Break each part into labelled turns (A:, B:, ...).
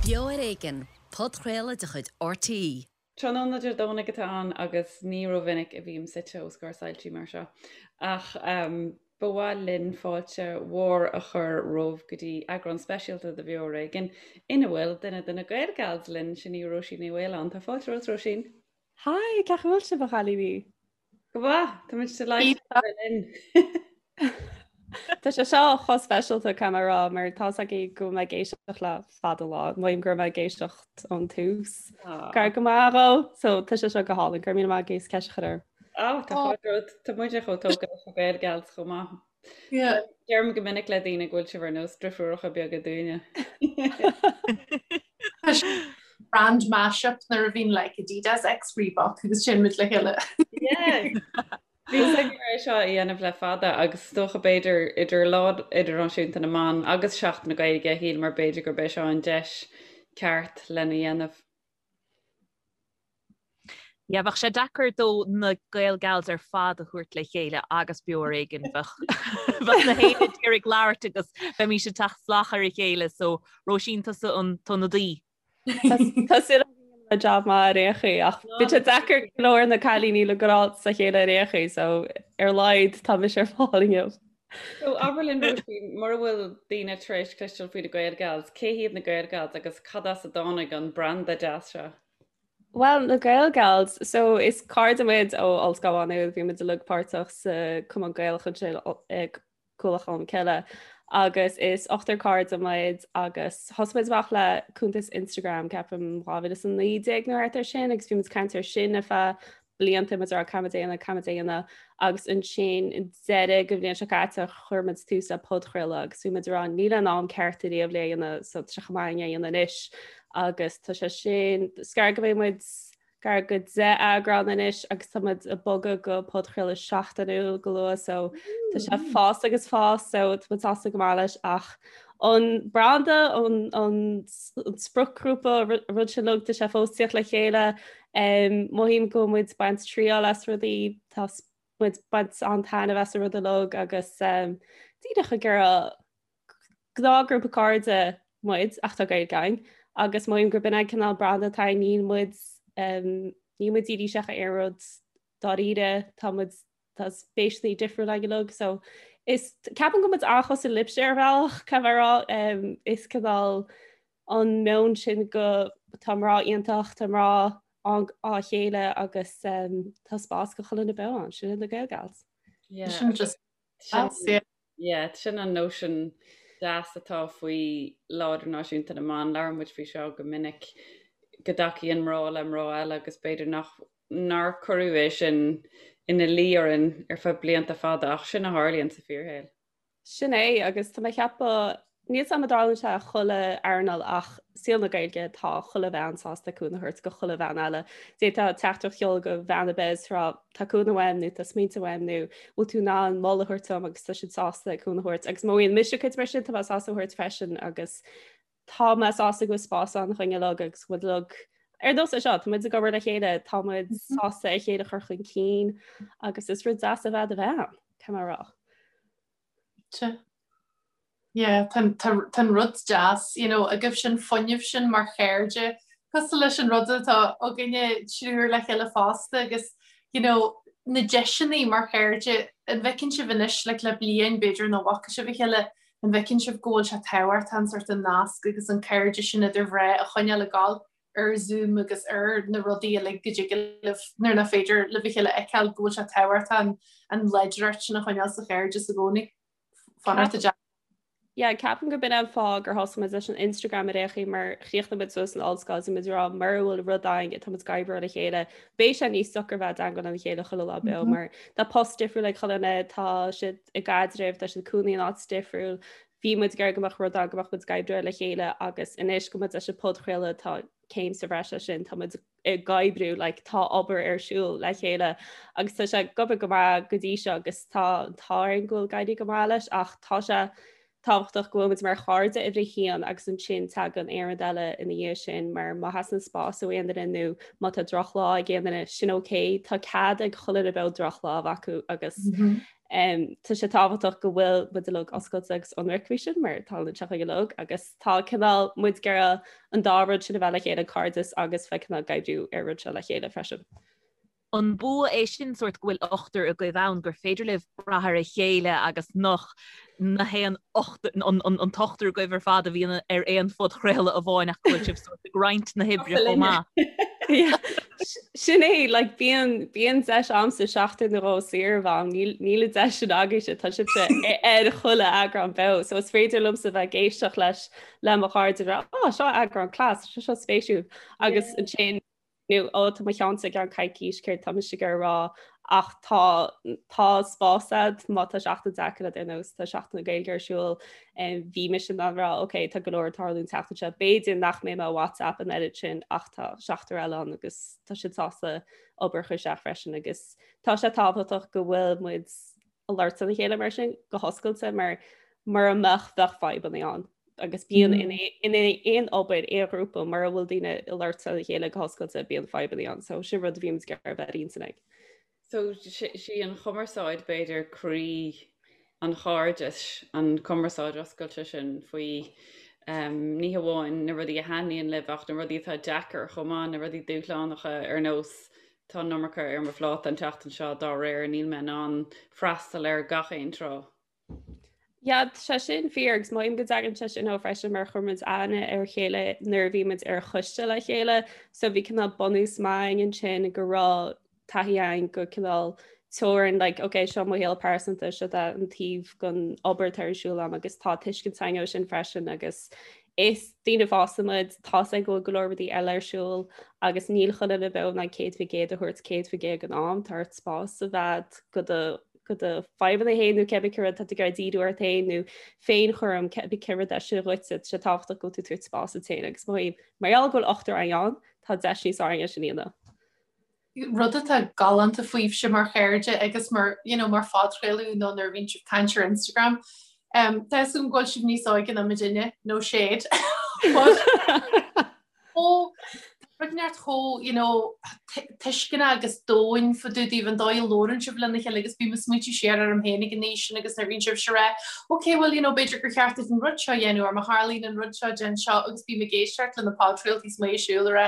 A: Beo ar Éigean, podchraoladh de chuid RTÉ.
B: Tráthnóna Dé Domhnaigh atá ann agus ní rómhinic a bhím suite os comhair soilsí mar seo. Ach ba mhaith linn fáilte mhór a chur romhaibh go dtí eagrán speisialta de Bheo ar Éigean ina bhfuil duine de na Gaelgals linn, sin í Róisín Ní Mhaoláin. Tá fáilte romhat, Róisín.
C: Hi, cén chaoi a bhfuil sibh a chailíní?
B: Go maith, tá muid delighted a bheith linn.
C: Tá sé seo chomh speisialta caithfidh mé a rá mar tá 's agaibh go bhfuil mé ag éisteacht le fada lá, mothaím go raibh mé ag éisteacht ón tús. Gar go maith dhó, so tá sé seo go hálainn, go raibh míle maith agaibh as ceist a chur orm.
B: Á, tá fáilte romhat, tá muide chomh tógtha leis na Gaelgals chomh maith. Deirim go minic le daoine go bhfuil sibh ar nós driofúracha beaga dúinne.
D: Brand mashup nuair a bhíonn like Adidas X Reebok agus sin muid le chéile.
B: Bhí a fhios againn é seo a dhéanamh le fada agus is dócha b'fhéidir idir Lá Idirnáisiúnta na mBan agus Seachtain na Gaeilge shíleamar b'fhéidir gurb é seo an deis ceart lena dhéanamh.
E: Yeah, bheadh sé deacair dó na Gaelgals ar fad a thabhairt le chéile agus Beo ar Éigean bheadh bheadh na héinne ag iarraidh labhairt agus bheimís ag teacht salach ar a chéile so Róisín tusa an t-ionadaí.
C: Tá súil agam go ndéanfaidh mé jab maith ar aon chaoi ach bíonn sé deacair go leor na cailíní le gabháil sa chéile ar aon chaoi so ar a laghad tá mise ar fáil inniu.
B: So abair linn Róisín, mura bhfuil daoine tar éis cloisteáil faoi na Gaelgals, cé hiad na Gaelgals agus cad as a dtáinig an branda deas seo?
C: Bhuel, na Gaelgals, so is cairde muid ó Ollscoil Mhá Nuad, bhí muid uilig páirteach sa Cumann Gaelach ansin i Cuallacht Cholm Cille agus is ochtar cairde muid agus thosaigh muid amach le cuntas Instagram ceapaim 2019 nó thart ar sin agus bhí muid ag caint ar sin ar feadh blianta muid ag rá caithfimid é a dhéanamh, caithfimid é a dhéanamh agus ansin i deireadh den bhliain seo caite chuir muid tús le podchraoladh agus bhí muid ag rá níl an am ceart ariamh le é a dhéanamh so tá sé chomh maith é a dhéanamh anois agus tá sé sin is gar go mbeidh muid gar go 10 eagrán anois agus tá muid ag bogadh go podchraoladh seachtainiúil go luath so tá sé ag fás agus fás so tá muid sásta go maith leis ach an branda an an spriocghrúpa rud sin uilig tá sé fós ag tíocht le chéile Mothaím go bhfuil muid ag baint triail as rudaí, tá muid ag baint an-taitneamh as an rud uilig agus díreach ag iarraidh gnáthghrúpa cairde muid ach tá Gaeilge againn agus mothaím gurb in an cineál branda atá againn, níl muid níl muid dírithe isteach ar aon rud dáiríre, tá muid tá spéiseanna difriúla againn uilig so is ceapaim go bhfuil muid an-chosúil libhse ar bhealach, caithfidh mé a rá, is cineál an meon sin go tá mná iontach, tá mná á chéile agus tá spás do chuile dhuine bheith ann, sin iad na Gaelgals.
B: Yeah. Sin just Yeah, sin an nóisean deas atá faoi Lá Idirnáisiúnta na mBan. Labhrann muid faoi seo go minic, go dtacaíonn mná le mná eile agus b'fhéidir nach nár cuireadh é sin ina luí orainn ar feadh blianta fada ach sin a tharlaíonn sa fíorshaol.
C: Sin é, agus tá mé ag ceapadh, níl 's agam an dtarlaíonn sé i chuile earnáil ach saol na Gaeilge tá chuile bhean sásta cúnamh a thabhairt go chuile bhean eile. D'fhéadfá teachtaireacht a sheoladh go bhean ar bith is rá tá cúnamh uaim nó tá smaointe uaim nó bhfuil tú in ann moladh a thabhairt dom agus tá siad sásta cúnamh a thabhairt. Agus má bhíonn mise cuid mar sin tá mé sásta a thabhairt freisin agus tá mé sásta go bhfuil spás ann dúinn uilig agus go bhfuil uilig ar nós é seo, tá muid ag obair le chéile, tá muid sásta a chéile a chur chun cinn agus is rud deas a bheith i do bhean, caithfidh mé a rá.
D: Yeah, tá an rud deas, you know, agaibh sin fuinneamh sin mar chairde, cosúil leis an rud atá againne triúr le chéile fosta agus, you know, na deiseanna mar chairde, an bhfeiceann sibh anois, like, le bliain b'fhéidir nach bhfaca sibh a chéile, an bhfeiceann sibh go bhfuil sé tábhachtach an sort an nasc agus an cairde sin idir mhná a choinneáil ag gabháil ar Zoom agus ar na rudaí uilig go dtig libh nuair nach féidir libh a chéile a fheiceáil go bhfuil sé tábhachtach an láidreacht sin a choinneáil sa chairdeas i gcónaí. Fanacht
C: a Yeah, ceapaim gurb in an fáth gur thosaigh muid leis an Instagram ar aon chaoi mar chríochnaigh muid suas san ollscoil is muid ag rá mura bhfuil rud againn atá muid ag oibriú le chéile beidh sé níos deacra bheith i dteagmháil lena chéile chuile lá beo mar tá post difriúil ag chuile dhuine, tá siad i gcaidreamh, tá siad ag cónaí in áit difriúil, bhí muid ag iarraidh go mbeadh rud ann go mbeadh muid ag oibriú le chéile agus anois go muid leis an podchraoladh tá céim sa bhreis leis sin, tá muid ag oibriú like, tá obair ar siúl le chéile agus tá sé ag obair go maith go dtí seo agus tá an t-ádh orainn go bhfuil ag éirí go maith leis ach tá sé. tábhachtach go bhfuil muid mar chairde uimhir a haon agus ansin tagann aon rud eile ina dhiaidh sin mar má theastaíonn spás ó aon duine nó má tá drochlá ag aon duine, sin ok, tá cead ag chuile dhuine beo drochlá a bheith acu agus tá sé tábhachtach go bhfuil muid uilig oscailte agus ionraic faoi sin mar tá an teach uilig agus tá cineál muid ag iarraidh an dá rud sin a bheith le chéile, cairdeas agus bheith cineál ag oibriú ar rud seo le chéile freisin.
E: An bua é sin sórt go bhfuil ochtar agaibh ann gur féidir libh brath ar a chéile agus nach na haon an t-ochtar agaibh ar fad a bhíonn ar aon phodchraoladh amháin ach go bhfuil sibh sórt ag roinnt na hoibre chomh
C: maith. Sin é, like, bíonn bíonn deis a'msa seachtain nó dhó saor a bheith a'm, níl níl an deis sin agaibhse, tá sibhse ar chuile eagrán beo, so is féidir liomsa bheith ag éisteacht leis le mo chairde a rá, oh, seo eagrán class, seo seo spéisiúil, agus ansin nó ó tá mo cheannsa i gceann coicís céard tá mise ag iarraidh a rá ach tá tá spás a'd má tá seachtain deacair a'd ar nós tá Seachtain na Gaeilge ar siúl bhí mise in ann rá ok tá go leor ag tarlú an tseachtain seo b'fhéidir nach mbeidh mé ar WhatsApp an oiread sin ach tá seachtar eile ann agus tá siad sásta obair a chur isteach freisin agus tá sé tábhachtach go bhfuil muid ag labhairt lena chéile mar sin go hoscailte mar mura mbeadh bheadh fadhbanna ann. agus bíonn in in aon obair aon ghrúpa mura bhfuil daoine ag labhairt lena chéile go hoscailte bíonn fadhbanna ann so sin rud a bhímid ag iarraidh a bheith ar intinn ag.
B: So sí an chumarsáid b'fhéidir croí an chairdis, an chumarsáid oscailte sin faoi ní hamháin na rudaí a thaitníonn libh ach na rudaí atá deacair chomh maith, na rudaí dúshlánacha ar nós tá an iomarca ar mo phláta an tseachtain seo dá réir níl mé in ann freastal ar gach aon tráth.
C: Yeah, tá sé sin fíor agus mothaím go dtagann sé sin ó freisin mar chuir muid aithne ar a chéile nuair a bhí muid ar choiste le chéile so bhí cineál bunús maith againn ansin go raibh taithí againn go cineál teorainn like ok seo mo shaol pearsanta seo tá an taobh den obair atá ar siúl agam agus tá tuiscint againn ó sin freisin agus is daoine fásta muid tá a fhios againn go bhfuil go leor rudaí eile ar siúl agus níl chuile dhuine beo in ann 100% a thabhairt 100% den am tá ort spás a bheith go do go do fadhbanna féin nó cibé céard atá tú ag iarraidh díriú ort féin nó féinchúram cibé cén rud é sin dhuitse, tá sé tábhachtach go bhfuil tú ag tabhairt spás duit féin agus mothaím mar gheall go bhfuil ochtar againn ann, tá deis níos fearr againn é sin a dhéanamh.
D: Rud atá galánta fúibhse mar chairde agus mar, you know, mar phodchraoladh nó nuair a bhíonn sibh ag caint ar Instagram, um, tá a fhios agam go bhfuil sibh níos óige ná muidinne, no shade. But chomh rud inteacht chomh you know tuisceanach agus domhain fá dtaobh daoibh an dóigh a labhrann sibh lena chéile agus bím ag smaointiú siar orm féin ag an aois sin agus nuair a bhíonn sibhse ag rá ok well you know b'fhéidir gur cheart duit an rud seo a dhéanamh or má tharlaíonn an rud seo déan seo agus bím ag éisteacht le na podchraoltaí is mé ag siúl ag rá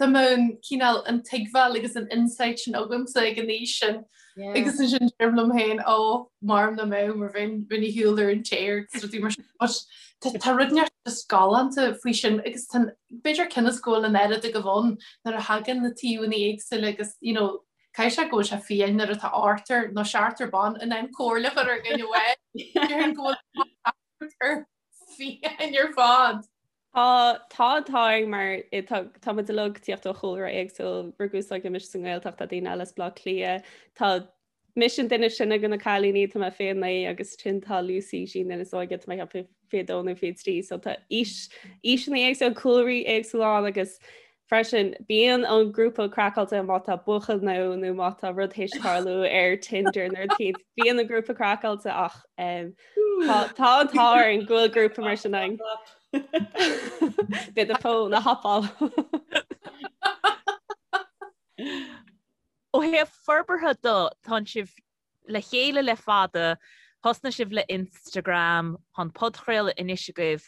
D: dá mbeadh an cineál an tuigbheáil agus an insight sin agamsa ag an aois sin Agus ansin deirim liom féin ó maram nach mbeadh mar bheinn bheinn ar shiúl ar an téar agus rudaí mar sin. But tá tá rud inteacht just galánta faoi sin agus tá b'fhéidir cionn is go bhfuil an oiread agaibh ann nuair a thagann na taobhanna éagsúla agus you know caithfidh sé go bhfuil sé fiáin nuair atá ochtar nó seachtar ban in ann comhairle a chur ar dhuine amháin. Déarfainn go bhfuil ar fiáin ar fad.
C: Tá, tá, tá mar tá, tá muid uilig ag tíocht ó chúlra éagsúil, rugadh is tógadh mise sa nGaeltacht, tá daoine eile as Baile Átha Cliath, tá mise an duine is sine de na cailíní, tá mé 29 agus ansin tá Lucy, sí an duine is óige, tá mé ag ceapadh 22 nó 23, so tá aois, aoiseanna éagsúla, cúlraí éagsúla ann agus freisin bíonn an grúpa craiceáilte má tá buachaill nó nó má tá rud théis tarlú ar Tinder nó rud éicint, bíonn an grúpa craiceáilte ach um, tá tá an t-ádh orainn go bhfuil grúpa mar sin againn. Beidh do fón á thapáil.
E: Ó thaobh forbartha de, tánn sibh le chéile le fada, thosnaigh sibh le Instagram, tá an podchraoladh anois agaibh.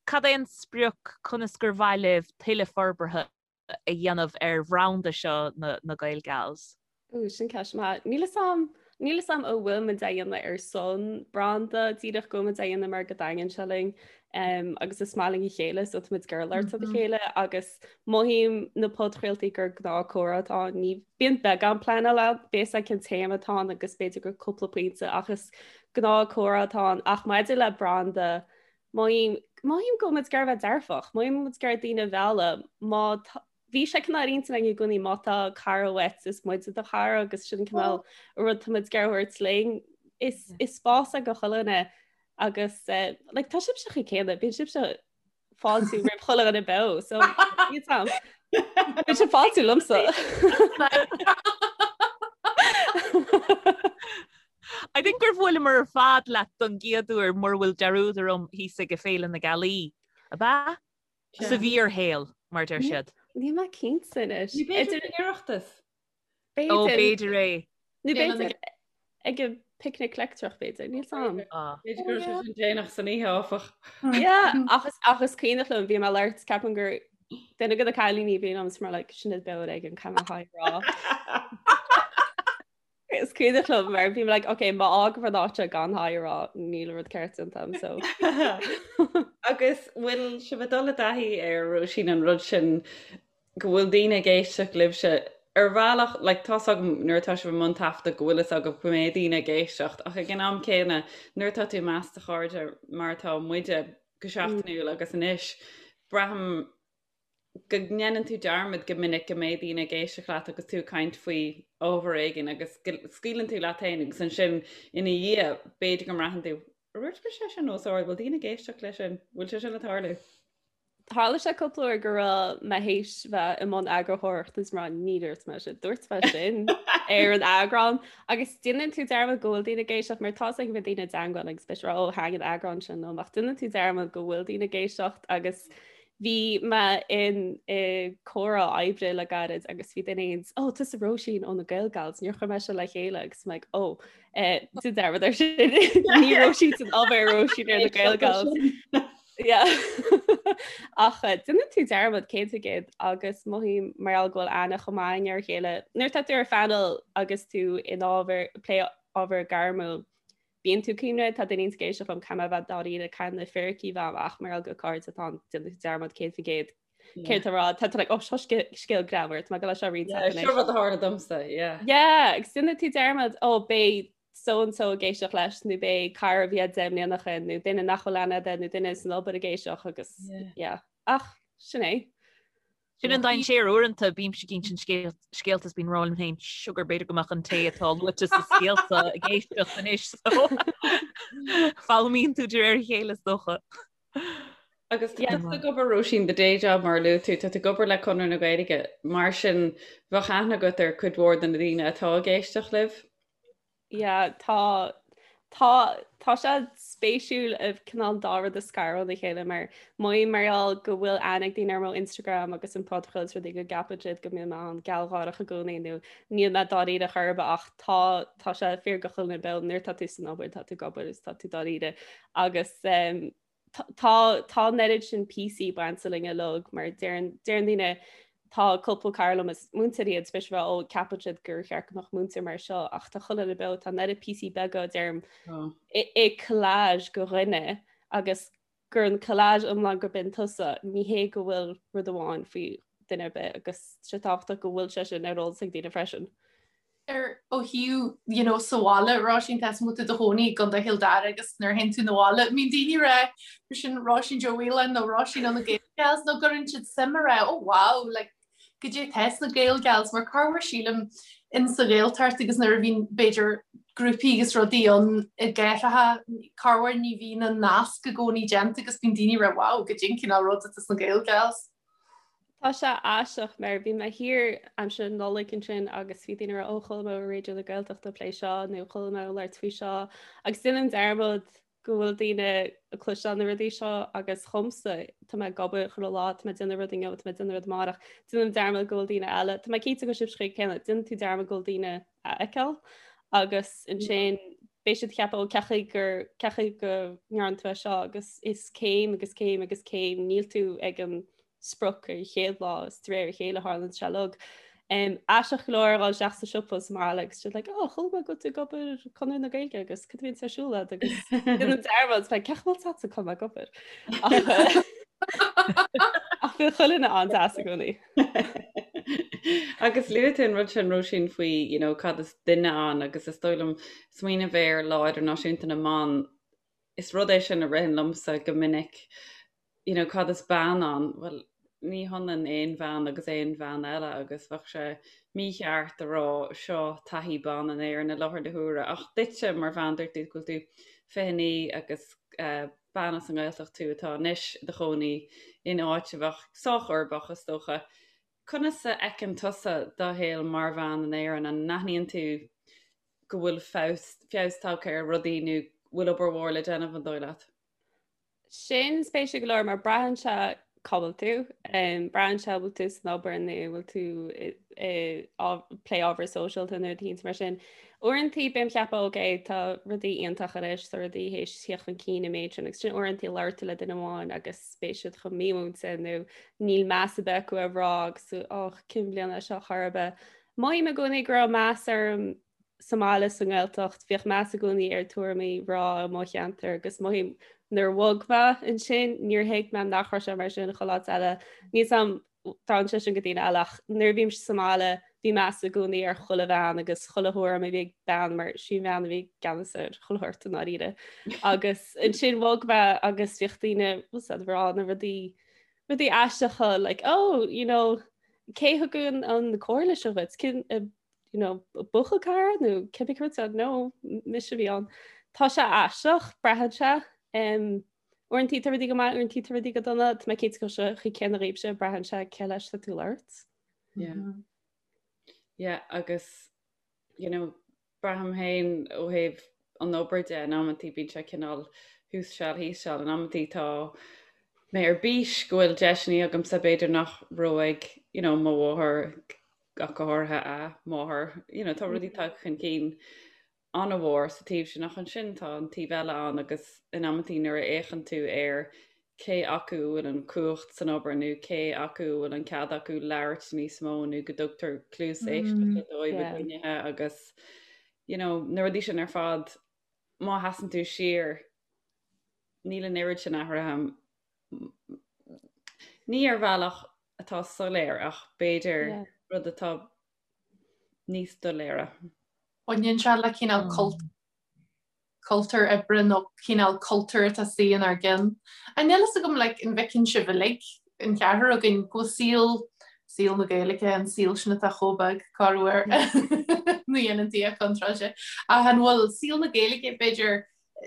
E: Cad é an sprioc, conas gur mhaith libh tuilleadh forbartha a dhéanamh ar bhranda seo na Gaelgals?
C: Ooh, sin ceist maith. Níl 'fhios a'm, níl 'fhios a'm an bhfuil muid á dhéanamh ar son branda, díreach go bhfuil muid á dhéanamh mar go dtaitníonn sé linn um, agus is maith linn a chéile, so tá muid ag iarraidh labhairt le chéile agus mothaím na podchraoltaí gur gnáth comhrá atá ann. Ní bíonn beagán pleanáil ann, bíonn cén téama atá ann agus b'fhéidir gur cúpla pointe ach is gnáth comhrá atá ann ach maidir le branda Mothaím, mothaím go bhfuil muid ag iarraidh a bheith dearfach, mothaím muid ag iarraidh daoine a mhealladh, má tá, bhí sé cineál ar intinn againn i gcónaí má tá cara uait is muide do chara agus sin cineál rud tá muid ag iarraidh a thabhairt linn. Is, is spás é do chuile dhuine agus eh, like, tá sibhse chomh céanna, bíonn sibhse ag fáiltiú roimh chuile dhuine beo, so níl 'fhios a'm. Bíonn sibh ag fáiltiú liomsa.
E: I think gur bhuaileamar ar fad leat don gcéad uair mura bhfuil dearúd orm thíos ag Féile na Gealaí. Ab ea? Sa bhfíorshaol, mar deir siad.
C: Níl mé cinnte anois.
B: Ní b'fhéidir an Oireachtas.
E: Ó, b'fhéidir é.
C: Nó b'fhéidir ag an picnic leictreach b'fhéidir, níl 's a'm.
B: B'fhéidir go raibh sé sin déanach san oíche áfach.
C: Yeah, ach is ach is cuimhneach liom bhí mé ag labhairt ceapaim gur duine de na cailíní bhí liom is mar like sin Beo Ar Éigean caithfidh mé hi a rá. Is cuimhneach liom mar bhí mé like ok má fhágaim an áit seo gan hi a rá níl rud ceart déanta agam so.
B: Agus bhfuil sibh ag dul i dtaithí ar Róisín an rud sin go bhfuil daoine ag éisteacht libhse ar bhealach like tá's agam nuair atá sibh i mbun taifeadta go bhfuil fhios agaibh go mbeidh daoine ag éisteacht ach ag an am céanna nuair atá tú i measc do chairde mar atá muide go seachtainiúil agus anois braithim go ndéanann tú dearmad go minic go mbeidh daoine ag éisteacht leat agus tú ag caint faoi ábhar éigin agus go scaoileann tú leat féin agus ansin ina dhiaidh b'fhéidir go mbraitheann tú Ar dhúirt mise é sin os ard, bhfuil daoine ag éisteacht leis sin? Bhfuil sé sin ag tarlú?
C: Tharla sé cúpla uair go raibh mé théis bheith i mbun eagarthóireachta is mar ní dúirt mé sin, dúirt mé sin ar an eagrán agus déanann tú dearmad go bhfuil daoine ag éisteacht mar tá ag bheith daoine i dteagmháil agus beidh rá ó thaithin an eagrán sin liom ach déanann tú dearmad go bhfuil daoine ag éisteacht agus Bhí mé in i comhrá oibre le gairid agus bhí duine éigin, ó tusa Róisín ó na Gael Gals, níor chuir mé seo le chéile agus mé like, ó eh, déan dearmad ar sin ní Róisín san obair Róisín ar na Gael Gals. Yeah. Ach eh, déanann tú dearmad 100% agus mothaím mar gheall go bhfuil aithne chomh maith againn ar a chéile. Nuair atá tú ar phainéal agus tú in ábhar plé ábhar gairmiúil, Bíonn tú cuimhne, tá daoine ag éisteacht liom, caithfidh mé a bheith dáiríre, caithfidh na fíricí bheith amach mar gheall gur cairde atá ann, déanann tú dearmad 100% céard tá rá, tá tú like, oh, seo scéal greannmhar, tá mé ag dul é seo a roinnt
B: leat anois. Seo rud a tharla domsa, yeah.
C: Yeah, agus déanann tú dearmad, oh, beidh so and so ag éisteacht leis, nó beidh cara a bhí 10 mbliana ó shin, nó duine nach bhfuil aithne agat, nó duine san obair ag éisteacht agus, yeah. Ach, sin é.
E: Sin an dainséar uaireanta, bímse ag insint scéalta is bím ag rá liom féin sugar b'fhéidir go mbeadh an té atá luaite sa scéal seo ag éisteacht anois so foghlaimíonn tú de réir a chéile is dócha.
B: Agus tá tú ag obair Róisín the day job mar a luaigh tú, tá tú ag obair le Conradh na Gaeilge, mar sin bheadh aithne agat ar cuid mhór de na daoine atá ag éisteacht libh?
C: Yeah, tá tá tá sé spéisiúil an cineál dá rud a scaradh óna chéile mar mothaím mar gheall go bhfuil aithne ag daoine ar mo Instagram agus an podchraoladh is rudaí go gceapann siad go mbíonn mé an-ghealgháireach i gcónaí nó níl mé dáiríre chor ar bith ach tá tá sé fíor do chuile dhuine beo nuair tá tú san obair tá tú ag obair is tá tú dáiríre agus um, Tá tá an oiread sin píosaí bainte linn uilig mar deireann deireann daoine tá cúpla cara liom is múinteoirí iad spéis bheith ó ceapann siad gur cheart go mbeadh múinteoir mar seo ach tá chuile dhuine beo tá an oiread píosaí beaga deirim i i collage de dhuine agus gur an collage iomlán gurb in tusa ní hé go bhfuil rud amháin faoi duine ar bith agus sé tábhachtach go bhfuil sé sin ar eolas ag daoine freisin.
D: ar ó thaobh you know sa bhaile Róisín tá tú i do chónaí i gContae Chill Dara agus nuair a théann tú 'na bhaile mbíonn daoine ag rá sin Róisín Joe Whelan nó Róisín ó na Gael Gals nó gcuireann siad suim ag rá oh wow like goidé tá sna Gael Gals mar corruair sílim in sa Ghaeltacht agus nuair a bhíonn b'fhéidir grúpaí agus rudaí ann i gcathracha corruair ní bhíonn an nasc i gcónaí déanta agus bíonn daoine ag rá wow goidé an cineál rud atá sna Gael Gals.
C: Tá sé aisteach mar bhí mé thiar aimsir na Nollag ansin agus bhí daoine ag rá ó chuala mé ar Raidió na Gaeltachta ag plé seo nó chuala mé ag labhairt faoi seo agus déanaim dearmad go bhfuil daoine ag cloisteáil na rudaí seo agus chomsa tá mé ag obair chuile lá tá mé ag déanamh rud inniu tá mé ag déanamh rud amárach déanaim dearmad go bhfuil daoine eile tá mé cinnte go sibh céanna déanann tú dearmad go bhfuil daoine a fheiceáil agus ansin beidh siad ag ceapadh ó cén chaoi gur cén chaoi go ndearna tú é seo agus is céim agus céim agus céim níl tú ag an sprioc ar an chéad lá is de réir a chéile a tharlaíonn sé uilig. Um, aisteach go leor a dhul isteach sa siopa sa mbaile agus siad like, oh, chuala mé go bhfuil tú ag obair Conradh na Gaeilge agus cad a bhíonn ar siúl agat agus déanaim dearmad cén chaoi bhfuil a fhios agat go bhfuil mé ag obair. Ach bíonn chuile dhuine an-deas i gcónaí.
B: Agus luaigh tú an rud sin Róisín faoi you know, cad is duine ann agus is dóigh liom smaoineamh ar Lá Idirnáisiúnta na mBan, is rud é sin a ritheann liomsa go minic, you know, cad is bean ann? Bhuel, ní hionann aon bhean agus aon bhean eile agus bheadh sé mícheart a rá seo taithí ban in Éirinn i láthair na huaire ach duitse mar bhean dúirt tú go bhfuil tú 29 agus uh, bean as an nGaeltacht tú atá anois i do chónaí in áit a bheadh sách uirbeach is dócha. Conas a fheiceann tusa do shaol mar bhean in Éirinn? An n-aithníonn tú. go bhfuil feabhas, feabhas tagtha ar rudaí nó bhfuil obair mhór le déanamh an dóigh leat?
C: Sin spéisiúil go leor mar braitheann sé cá bhfuil tú, braitheann sé bhfuil tú san obair nó bhfuil tú ag plé ábhar sóisialta nó rudaí mar sin. Uaireantaí bím ag ceapadh ok tá rudaí iontach anois, tá rudaí théis tíocht chun cinn an méid sin agus sin uaireantaí labhair tú le duine amháin agus beidh siad chomh mímhúinte nó níl meas ar bith acu ar mhná agus tú och cén bhliain é seo chor ar bith. Mothaím i gcónaí go raibh meas orm sa mbaile sa nGaeltacht, bhíodh meas i gcónaí ar tuairimí mhná i mo cheantar agus mothaím nuair a bhog mé ansin níor thuig mé nach raibh sé mar sin chuile áit eile. Níl 'fhios a'm dtarlaíonn sé sin go daoine eile ach nuair a bhímse sa mbaile bhí meas i gcónaí ar chuile bhean agus chuile thuairim a bhí ag bean mar sí an bhean a bhí i gceannas ar chuile shórt i ndáiríre. Agus ansin bhog mé agus bhíodh daoine ag rá na rudaí rudaí aisteacha like oh you know cé thug an an comhairle seo dhuit cén eh, you know buachaill cara nó cibé céard said no mise a bhí ann. Tá sé aisteach braitheann sé um, uaireantaí tá rudaí go maith uaireantaí tá rudaí go dona tá mé cinnte go bhfuil sé chomh céanna dhaoibhse braitheann sé cé leis tá tú ag labhairt.
B: Yeah. Yeah, agus you know, Braithim féin ó thaobh an obair de, in amantaí bíonn sé cineál thuas seal thíos seal, in amantaí tá mé ar bís go bhfuil deiseanna agamsa b'fhéidir nach raibh ag you know, mo mháthair ach go háirithe a máthair, you know, tá rudaí tagtha chun cinn an-mhór sa taobh sin ach ansin tá an taobh eile ann agus in amantaí nuair a fhéachann tú ar cé acu a bhfuil an chumhacht san obair nó cé acu a bhfuil an cead acu labhairt níos mó nó go dtugtar cluas éisteachta dóibh i gcruinnithe agus you know, na rudaí sin ar fad má sheasann tú siar níl an oiread sin athraithe ní ar bhealach atá soiléir ach b'fhéidir rud atá níos doiléire.
D: Baineann sé le cineál cult cultúr oibre nó cineál cultúr atá suí inár gceann. An níl fhios agam like an bhfeiceann sibh uilig, an ceathrar againn, go bhfuil saol, saol na Gaeilge, an saol sin atá chomh beag, corruair, ní dhéanann Dia contráilte, ach an bhfuil saol na Gaeilge, b'fhéidir,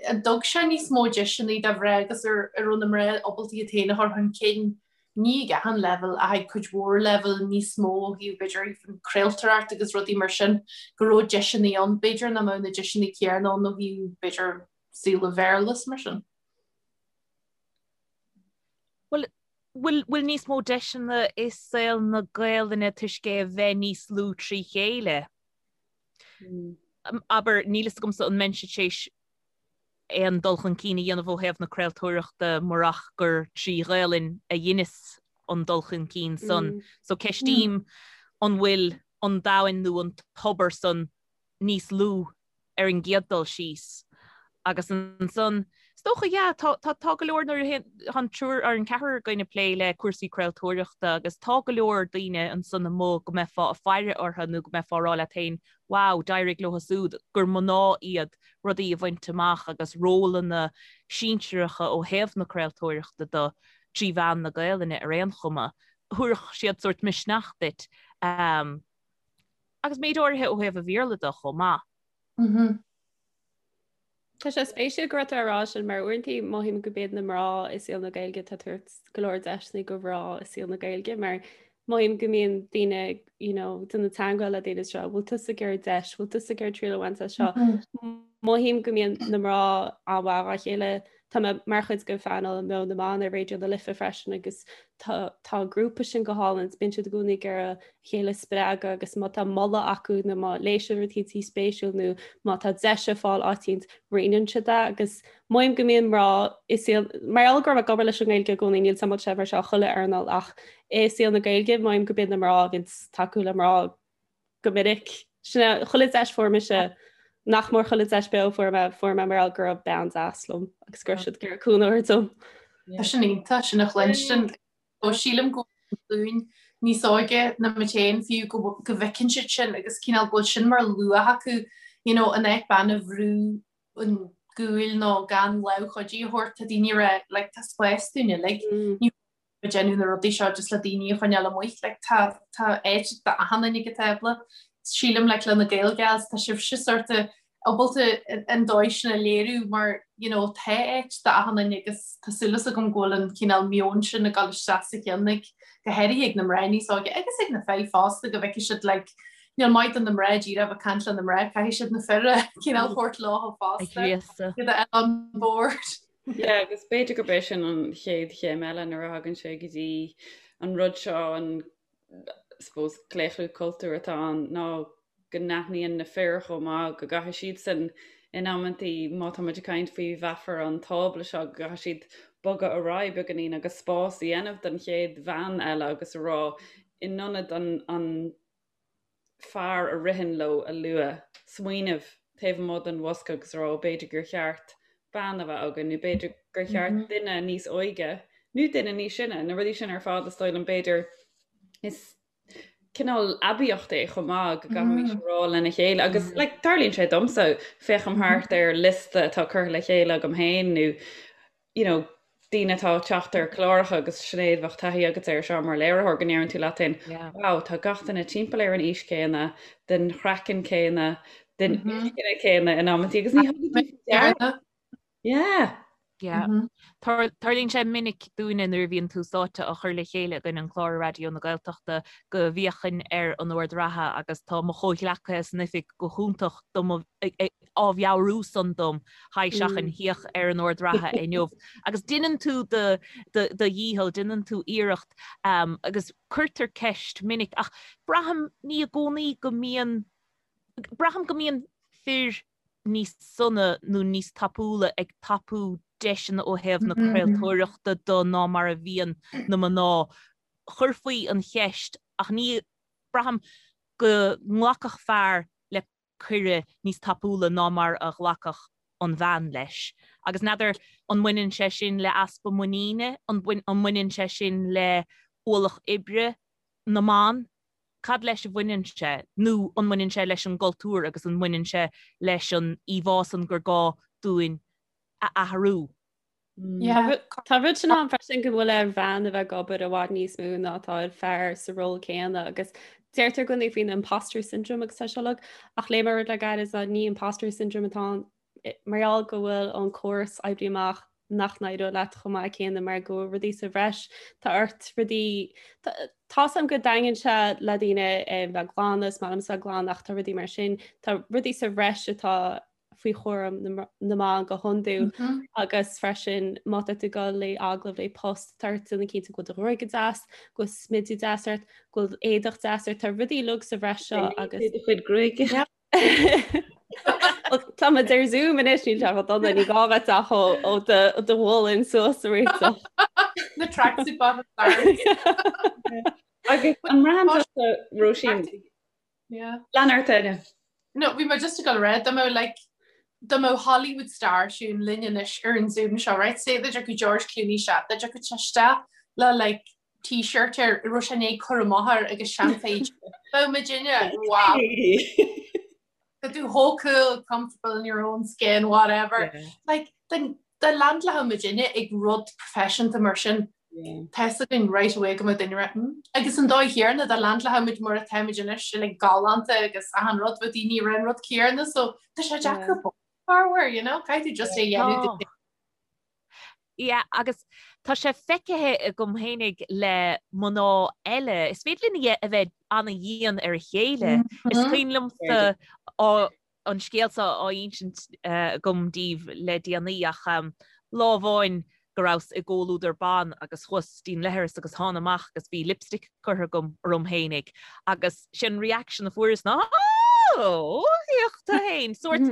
D: an dtug sé níos mó deiseanna do mhná agus ar raibh na mná ábalta iad féin a chur chun cinn ní ag achan leibhéal ach ag cuid mhór leibhéal níos mó ó thaobh b'fhéidir even craoltóireacht agus rudaí mar sin, go raibh deiseanna ann, b'fhéidir nach mbeadh na deiseanna céanna ann ó thaobh b'fhéidir saol an Bhéarla is mar sin.
E: Bhuel, bhfuil, bhfuil níos mó deiseanna i saol na Gaelainne toisc é a bheith níos lú trí chéile? Abair, níl fhios agamsa an mbeinnse tar éis aon dul chun cinn a dhéanamh ó thaobh na craoltóireachta murach gur trí Ghaelainn a dheineas an dul chun cinn san. So ceistím an bhfuil an domhan nó an tobar san níos lú ar an gcéad dul síos. Agus ansan, is dócha, yeah, tá, tá, tá go leor nuair a tá an triúr ar an ceathrar againn ag plé le cúrsaí craoltóireachta agus tá go leor daoine ansan amuigh go mbeifeá ag faire orthu nó go mbeifeá ag rá leat féin, wow, d'éirigh leo siúd, gur mná iad, rudaí a bhaint amach agus rólanna sinsearacha ó thaobh na craoltóireachta de trí mheán na Gaelainne ar aon chuma. Thabharfadh siad sórt misneach duit agus méid áirithe ó thaobh an Bhéarla de chomh maith.
C: Tá sé spéisiúil go raibh tú á rá sin mar uaireanta mothaím go b'iad na mná i saol na Gaeilge atá ag tabhairt go leor deiseanna do mhná i saol na Gaeilge mar mothaím go mbíonn daoine you know, déanamh teagmháil le daoine seo, bhfuil tusa ag iarraidh deis, bhfuil tusa ag iarraidh triail a bhaint as seo. Mothaím go mbíonn na mná an-mhaith dá chéile Tá mé mar chuid de phainéal Meon na mBan ar Raidió na Life freisin agus tá tá an grúpa sin go hálainn, bíonn siad i gcónaí ag iarraidh a chéile a spreagadh agus má tá moladh acu nó má léigh siad rud éicint spéisiúil nó má tá deis ar fáil áit éicint roinneann siad é agus mothaím go mbíonn mná i saol mar gheall go raibh mé ag obair leis an nGaeilge i gcónaí níl 's a'm an bhfuil sé mar seo chuile earnáil ach i saol na Gaeilge mothaím go b'iad na mná a bhíonn tacú le mná go minic. Sin é, chuile deis fuair mise, nach mór chuile deis beo fuair mé, fuair mé mar gheall go raibh bean deas liom agus go raibh siad ag iarraidh cúnamh a thabhairt dom.
D: Tá sin iontach, sin a chluinstin. Ó sílim go bhfuil níos óige ná muid féin fiú go go bhfeiceann siad sin agus cineál go bhfuil sin mar luach acu, you know, in áit bean a bhrú chun cúil nó gan lámh chuidí a thabhairt, tá daoine ag rá, like, tá spás dúinn uilig. Ní ag déanamh na rudaí seo just le daoine a choinneáil amuigh. Like, tá, tá áit d'achan duine ag an tábla. Sílim, like, le na Gael Gals, tá sibhse sort of ábalta an dóigh sin a léiriú mar, you know, tá áit d'achan duine agus tá súil agam go bhfuil an cineál meon sin ag dul isteach sa cheann ag, go háirithe ag na mná níos óige agus ag na fir fosta go bhfeicfidh siad, like, Níl maith do na mná díreach bheith ag caint le na mná, caithfidh siad na fir a cineál thabhairt leo fosta. Iad a fháil on board.
B: Yeah, agus b'fhéidir gurb é sin an chéad chéim eile nuair a thagann sé go dtí an rud seo, an suppose claochlú cultúir atá ann, ná go n-aithníonn na fir chomh maith go gcaithfidh siadsan in amantaí, má tá muid ag caint faoi mheafar an tábla seo, go gcaithfidh siad bogadh ar aghaidh beagáinín agus spás a dhéanamh don chéad bhean eile agus a rá in ionad an an fear a ritheann leo a lua, smaoineamh taobh amuigh den bhosca agus a rá b'fhéidir gur cheart bean a bheith againn nó b'fhéidir gur cheart duine níos óige nó duine níos sine, na rudaí sin ar fad is dóigh liom b'fhéidir is cineál aibíocht é chomh maith go gcaithfimid a rá lena chéile agus like, tarlaíonn sé domsa féachaim thart ar liosta atá curtha le chéile agam féin nó you know, daoine atá ag teacht ar chláracha agus Sinéad bheadh taithí agat air seo mar léiritheoir go ndeireann tú leat féin wow tá gach duine timpeall ar an aois céanna, den chraiceann céanna, den inscne céanna in amantaí agus ní thugann tú faoi deara. Yeah.
E: Yeah. Tarlaíonn sé minic dúinne nuair a bhíonn Tús Áite á chur le chéile againn an clár ar Raidió na Gaeltachta go bhféachainn ar an ord reatha agus tá mo chomhghleacaithe san oifig go hiontach do mo á mheabhrú san dom, haigh seachain, féach ar an ord reatha inniu. Agus déanann tú do dhícheall, déanann tú iarracht agus cuirtear ceist minic ach braithim ní i gcónaí go mbíonn, braithim go mbíonn fir níos sona nó níos tapúla ag tapú deiseanna ó thaobh na craoltóireachta de ná mar a bhíonn na mná. Chuirfí an cheist ach ní, braithim go nglacfadh fear le cuireadh níos tapúla ná mar a ghlacfadh an bhean leis. Agus n'fheadar an mbaineann sé sin le easpa muiníne, an mbaineann sé sin le ualach oibre na mban? Cad leis a bhaineann sé? Nó an mbaineann sé leis an gcultúr agus an mbaineann sé leis an íomhá san gur gá dúinn a athrú?
C: Tá rud sin ann freisin go bhfuil ar bhean a bheith ag obair i bhfad níos mó ná atá ar fear sa ról céanna agus deirtear i gcónaí faoin imposter syndrome agus tá sé uilig ach léigh mé rud le gairid ná ní imposter syndrome atá ann mar gheall go bhfuil an córas oibrithe amach nach n-éireoidh leat chomh maith céanna mar go bhfuil rudaí sa bhreis tá ort rudaí Tá's agam go dtaitníonn sé le daoine bheith glan is maith liomsa glan ach tá rudaí mar sin tá rudaí sa bhreis atá faoi chúram na mban go hiondúil agus freisin má tá tú ag dul le agallamh le post tá ort déanamh cinnte go bhfuil do ghruaig go deas, go bhfuil smideadh deas ort, go bhfuil éadach deas ort, tá rudaí uilig sa bhreis seo agus.
B: Do chuid gruaige.
C: Tá muid ar Zoom anois níl sé chomh dona ní gá bheith ach ó do mhullin suas a réiteach.
D: Na tracksuit bottoms.
B: Agus an mbraitheann tusa Róisín
D: Yeah.
B: Lean ort Áine.
D: No, bhí mé just ag dul a rá, dá mbeadh like, dá mbeadh Hollywood star siún linn anois ar an Zoom seo, right? Say dá dtiocfadh George Clooney isteach, dá dtiocfadh sé isteach le like t-shirt air, a raibh sé i ndiaidh cur amach air agus seanphéid. Bheadh muidinne, wow. Tá tú chomh cool, comfortable in your own skin, whatever. Yeah. Like, then dá leaindeálfadh muidinne ag rud proifisiúnta mar sin, Tá fhios againn right away go mbeadh duine ag rá hmm. Agus an dóigh chéanna dá leaindeálfadh muid mar atá muid anois like galánta agus achan rud bheadh daoine ag rá an rud céanna so tá sé deacair corruair, you know, caithfidh tú just é a dhéanamh.
E: Yeah, agus tá sé feicthe agam fhéinig le mná eile, is féidir linn a bheith ana-dhian ar a chéile. Is cuimhin liomsa an scéal seo á insint agam daoibh le déanaí ach lá amháin go rabhas i gcomhluadar ban agus chuas dtí'n leithreas agus thána amach agus bhí lipstick curtha agam orm fhéinig agus sin reaction a fuaireas ná oh féach tú fhéin sórt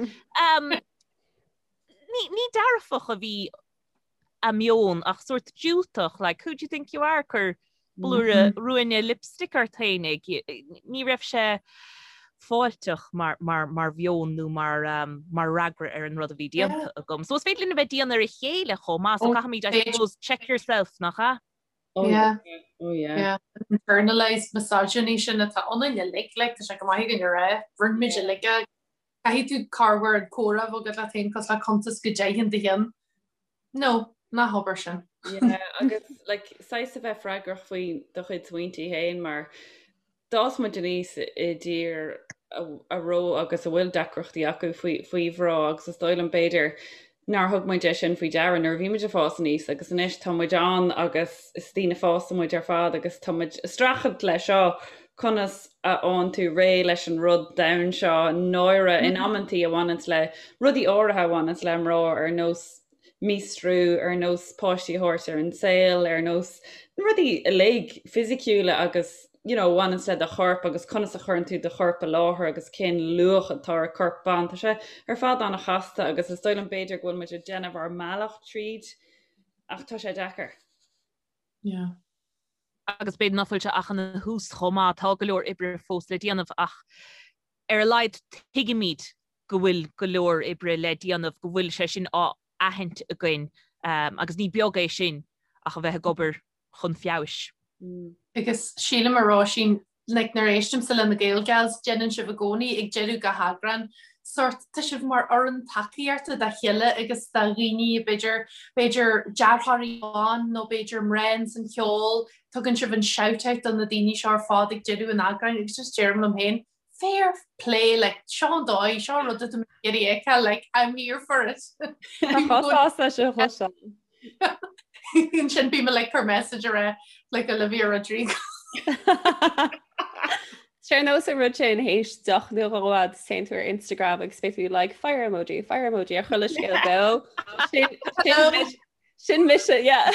E: ní dearfach a bhí a meon ach sórt diúltach, like who do you think you are ag cur blúire ruainne lipstick ort fhéinig. Ní raibh sé fáilteach mar, mar, mar mheon nó mar, um, mar fhreagra ar an rud a bhí déanta agam. So is féidir linn a bheith dian ar a chéile chomh maith, so caithfimid, I suppose, check yourself, nach ea?
D: Oh yeah.
B: Oh yeah.
D: Yeah. Internalized misogyny sin atá ionainn uilig, like, tá sé go maith againn a rá, rinne muid uilig é. Caithfidh tú corruair an comhrá a bheith agat leat féin cosúil le cuntas go deimhin do cheann. No, ná habair sin.
B: Yeah, agus like, saghas a bheith freagrach faoi do chuid smaointe féin mar d'fhás muid aníos i dtír a raibh agus a bhfuil deacrachtaí acu faoi, faoi mhná agus is dóigh liom b'fhéidir. Nár thug muid é sin faoi deara nuair a bhí muid ag fás aníos agus anois tá muid ann agus is daoine fásta muid ar fad agus tá muid ag streachailt leis seo, conas a fhaigheann tú réidh leis an rud domhain seo, náire in amantaí a bhaineanns le rudaí áirithe a bhaineanns le mná ar nós míostrú, ar nós páistí a thabhairt ar an saol, ar nós na rudaí uilig fisiciúla agus you know, bhaineanns le do chorp agus conas a chuireann tú do chorp i láthair agus cén luach atá ar corp ban. Tá sé ar fad an-chasta agus is dóigh liom b'fhéidir go bhfuil muid ag déanamh ár mbealach tríd ach tá sé deacair.
D: Yeah.
E: Agus b'fhéidir nach bhfuil sé ach ina thús chomh maith, tá go leor oibre fós le déanamh ach ar a laghad tuigimid go bhfuil go leor oibre le déanamh, go bhfuil sé sin á aithint againn agus ní beag é sin ach a bheith ag obair chun feabhais.
D: Agus sílim a Róisín, like nuair a éistimse le na Gael Gals, déanann sibh i gcónaí ag deireadh gach eagrán, sórt, tá sibh mar fhoireann tacaíochta dá chéile agus do dhaoine b'fhéidir, b'fhéidir deartháirí ban nó b'fhéidir mná ins an cheol, tugann sibh an shout out do na daoine seo ar fad ag deireadh an eagráin agus just deirim liom féin, fair play, like, seo an dóigh, seo an rud atá mé ag iarraidh a fheiceáil, like, I'm here for it.
C: Tá chomh sásta sin a chloisteáil.
D: Ansin bím like cur message ar a like Olivia Rodrigo.
C: Sé ar nós an rud sin théis deoch nó dhó agus téann tú ar Instagram agus beidh tú like fire emoji, fire emoji ar chuile scéal beo. Sin, sin, Sin mise, yeah.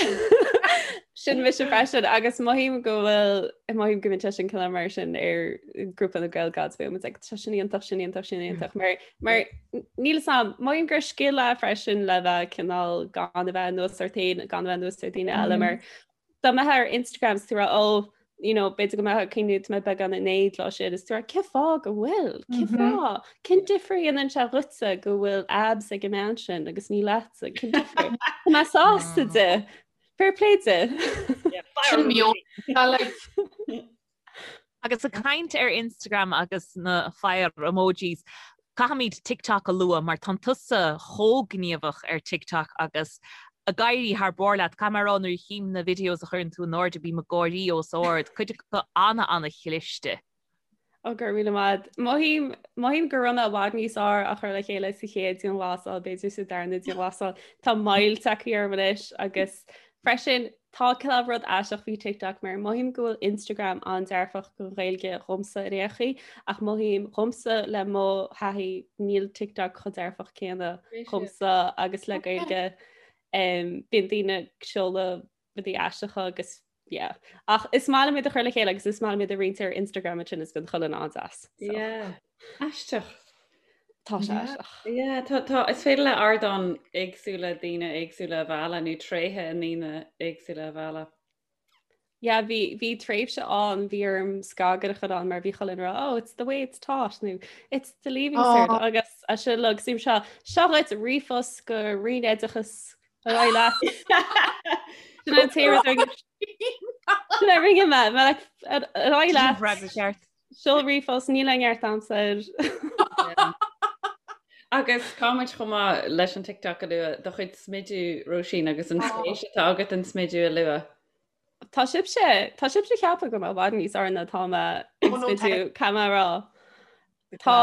C: Sin mise freisin agus mothaím go bhfuil mothaím go mbíonn sé sin cineál mar sin ar grúpa na Gael Gals bíonn muid like, tá sin iontach, sin iontach, sin iontach mar mar níl a fhios agam, mothaím gur scil é freisin le bheith cineál gan a bheith anuas ort féin, gan a bheith anuas ar daoine eile mar dá mbeifeá ar Instagram is tú ag rá oh you know, b'fhéidir go mbeifeá ag cuimhniú tá mé beagán in éad lá sin is tú ag rá cén fáth go bhfuil, cén mhm. fáth, cén difear a dhéanann sé dhuitse go bhfuil abs ag an mbean sin agus ní leatsa, cén difear? Tá mé sásta di, fair play di.
D: Sin mí
E: Agus ag caint ar Instagram agus na fire emojis, Caithfimid TikTok a lua mar tá tusa chomh gníomhach ar TikTok agus ag éirí thar barr leat. Caithfidh mé a rá nuair a chím na videos a chuireann tú in airde bím ag gáirí os ard, cuid acu ana-ana-chliste.
C: Ó go raibh míle maith. Mothaím, mothaím go raibh mé i bhfad níos fearr á chur le chéile sa chéad dianghlasáil, b'fhéidir sa darna dianghlasáil. Tá moill tagtha orm anois agus Freisin, tá cineál rud aisteach faoi TikTok mar mothaím go bhfuil Instagram an-dearfach don Ghaeilge dhomsa ar aon chaoi ach mothaím dhomsa le mo thaithí níl TikTok chomh dearfach céanna dhomsa agus le Gaeilge. Bíonn daoine ag seoladh rudaí aisteacha agus yeah. Ach is maith liom iad a chur le chéile agus is maith liom iad a roinnt ar Instagram ansin is bíonn chuile dhuine an-deas.
B: So. Yeah. Aisteach.
C: Tá sé aisteach.
B: Yeah, tá, tá, is féidir le ardáin éagsúla daoine éagsúla a mhealladh nó tréithe i ndaoine éagsúla a mhealladh.
C: Yeah, bhí, bhí tréimhse ann, bhí orm scagaire a chur ann mar bhí chuile dhuine ag rá, oh, it's the way it's taught, nó it's the leaving oh. cert, agus a sin lag, sim seo, seo dhuit ríomhphost go Roinn Oideachais ar aghaidh leat. Sin an t-aon rud a rinne- Sin a rinne mé, mé like, ar ar aghaidh leat.
E: Freagra ceart.
C: Seol ríomhphost, níl aon neart a'msa air.
B: Agus caithfimid chomh maith leis an TikTok a lua, do chuid smidiú, Róisín, agus an spéis atá agat an smidiú a lua.
C: Tá sibhse, tá sibhse ag ceapadh go bhfuil mé i bhfad níos fearr ná atá mé ag smidiú, caithfidh mé a rá. Tá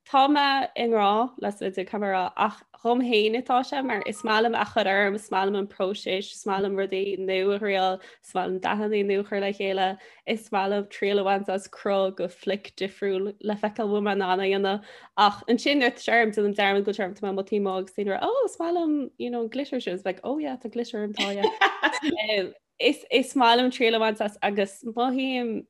C: Tá mé i ngrá le smidiú, caithfidh mé a rá, ach dhom féin atá sé mar is maith liom a chur orm, is maith liom an próiseas, is maith liom rudaí nua a thriail, is maith liom dathanna nua a chur le chéile, is maith liom triail a bhaint as cruth go flick difriúil le feiceáil bhfuil mé in ann a dhéanamh. Ach ansin nuair atá sé orm, déanaim dearmad go bhfuil sé orm, tá mé amuigh taobh amuigh agus daoine ag rá, oh, is maith liom, you know, an glitter sin, it's like, oh yeah, tá glitter orm, tá, yeah. Is maith liom triail a bhaint as agus mothaím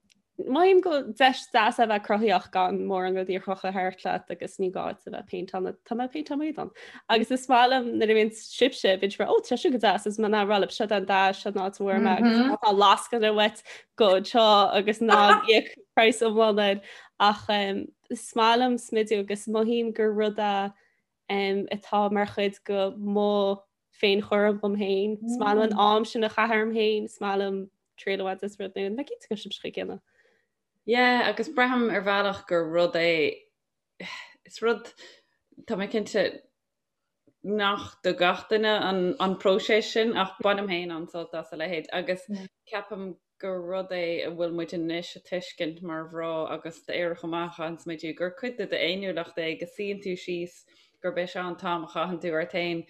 C: mothaím go deis deas a bheith cruthaitheach gan mórán rudaí a chrochadh thart leat agus ní gá duit a bheith péinteáil tá mé ag péinteáil m'éadan. Agus is maith liom nuair a bhíonn sibhse bíonn sibh ó tá seo go deas is mé ag rá libh seo an dath seo an áit a bhfuair mé agus má tá lascaine uait gabh anseo agus ná íoc praghas iomlán air ach is maith liom smidiú agus mothaím gur rud é atá mar chuid go mo féinchúram dhom féin. Is maith liom an am sin a chaitheamh orm féin, is maith liom triail a bhaint as rud nua. Nach cinnte go sibh chuig chéile.
B: Yeah, agus braithim ar bhealach gur rud é, is rud, tá mé cinnte nach do gach duine an, an próiseas sin ach bainim féin an-sult as a leithéid agus ceapaim gur rud é a bhfuil muid anois a tuiscint mar mhná agus d'aerach amach an smidiú gur cuid de d'fhéiniúlacht é go suíonn tú síos. gurb é seo an t-am a chaitheann tú ort féin.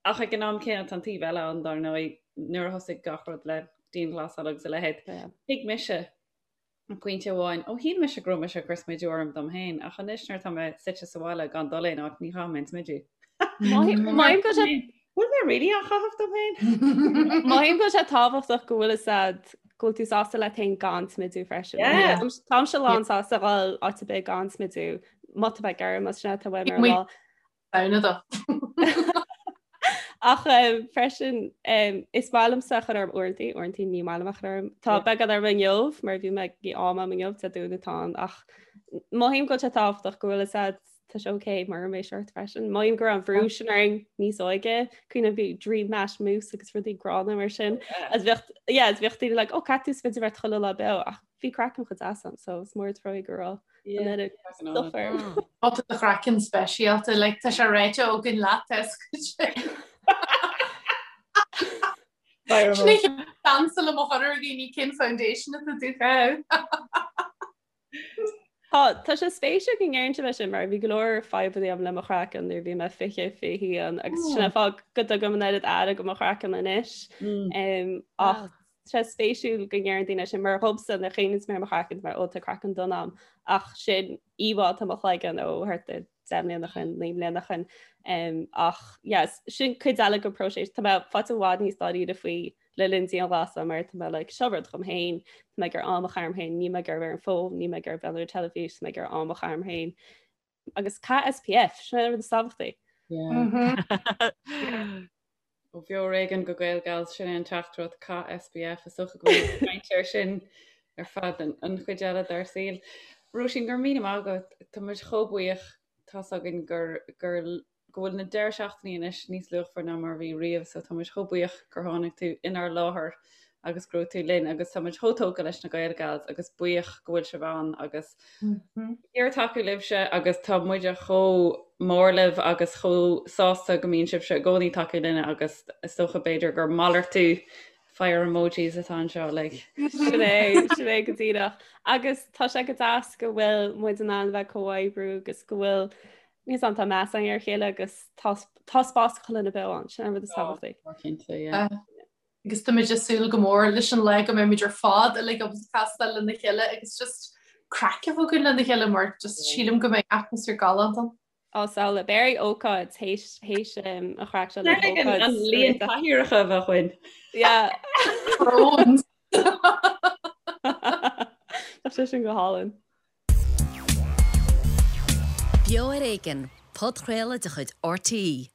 B: Ach ag an am céanna tá an taobh eile ann dar ndóigh nuair a thosaigh gach rud le dianghlasáil agus a leithéid. Thuig mise ag pointe amháin, ó shíl mise go raibh mise ag cur smidiú orm dom féin, ach anois nuair atá mé suite sa bhaile gan dul aon áit, ní chaithim aon smidiú.
C: Mothaím go sé
B: Bhfuil mé really á chaitheamh dom féin?
C: Mothaím go bhfuil sé tábhachtach go bhfuil fhios a'd go bhfuil tú sásta leat féin gan smidiú freisin. Táimse lán sásta dhul áit ar bith gan smidiú, má tá mé ag iarraidh, más sin atá uaim ar an lá.
D: Samhna do.
C: Ach freisin is maith liomsa a chur orm uaireanta, uaireanta ní maith liom a chur orm. Tá beagán orm inniu mar bhí mé ag am am inniu Dé Domhnaigh atá ann ach mothaím go bhfuil sé tábhachtach go bhfuil fhios a'd tá sé ok mura mbeidh ort freisin. Mothaím go raibh an bhrú sin orainn níos óige, cuimhin bhí Dream Matte Mousse agus rudaí gránna mar sin. Agus bheadh yeah, agus bheadh daoine like, ó caithfidh tú smideadh ort chuile lá beo ach bhí craiceann chomh deas ann so is mór an trua go raibh
D: Tá do chraiceann speisialta, like, tá sé ráite againn leat Dansa le mo chur ar dhaoine cén foundation atá tú chaitheamh.
C: Tá tá sé spéisiúil go ndeireann sibh é sin mar bhí go leor fadhbanna agam le mo chraiceann nuair a bhí mé 20 21 agus sin an fáth go dtugaim an oiread aire do mo chraiceann anois. Ach Tá sé spéisiúil go ndeireann daoine sin mar dhomsa nuair a chuimhníonn mé ar mo chraiceann mar ó tá craiceann donn a'm ach sin íomhá atá i mo chloigeann ó thart ar 10 mbliana ó shin, 9 mbliana ó shin. Um, ach yes, sin cuid eile den próiseas. Tá mé faighte i bhfad níos dáiríre faoi le linn dianghlasála mar tá mé like, seo rud dhom féin, tá mé ag iarraidh am a chaitheamh orm féin, níl mé ag iarraidh bheith ar an bhfón, níl mé ag iarraidh bheith ar an teilifís, tá mé ag iarraidh am a chaitheamh orm féin. Agus caith SPF, sin an rud is tábhachtaí.
B: Yeah. Ó Bheo ar Éigean go Gaelgals, sin é an teachtaireacht, caith SPF, is dócha go bhfuil muid ag caint air sin ar feadh an chuid eile dár saol. Róisín, go raibh míle maith agat, tá muid chomh buíoch, tá's againn gur, gur, go bhfuil na deireadh seachtainí anois níos luachmhar ná mar a bhí riamh, so tá muid chomh buíoch gur tháinig tú inár láthair agus go raibh tú linn agus tá muid chomh tógtha leis na Gaelgals agus buíoch go bhfuil sibh ann agus ag iarraidh tacú libhse agus tá muide chomh mór libh agus chomh sásta go mbíonn sibhse i gcónaí ag tacú linne agus is dócha b'fhéidir gur malartú fire emojis atá anseo like.
C: Sin é, sin é go díreach. Agus tá sé go deas go bhfuil muid in ann bheith comhoibriú agus go bhfuil níos an tá meas againn ar a chéile agus tá tá spás chuile dhuine beo ann, sin an rud is tábhachtaí.
B: Cinnte, yeah.
D: agus táimid ag súil go mór leis an lá go mbeimid ar fad uilig ábalta castáil lena chéile agus just craic a bheith againn lena chéile mar just sílim go mbeidh atmaisféar galánta ann.
C: Á samhlaigh, beidh ócáid théis théis an chraic seo le
B: ócáid. An líon cathaoireacha a bheadh againn.
C: Yeah.
D: Thrones.
C: Tá sé sin go hálainn.
A: Beo ar Éigean, podchraoladh de chuid RTÉ.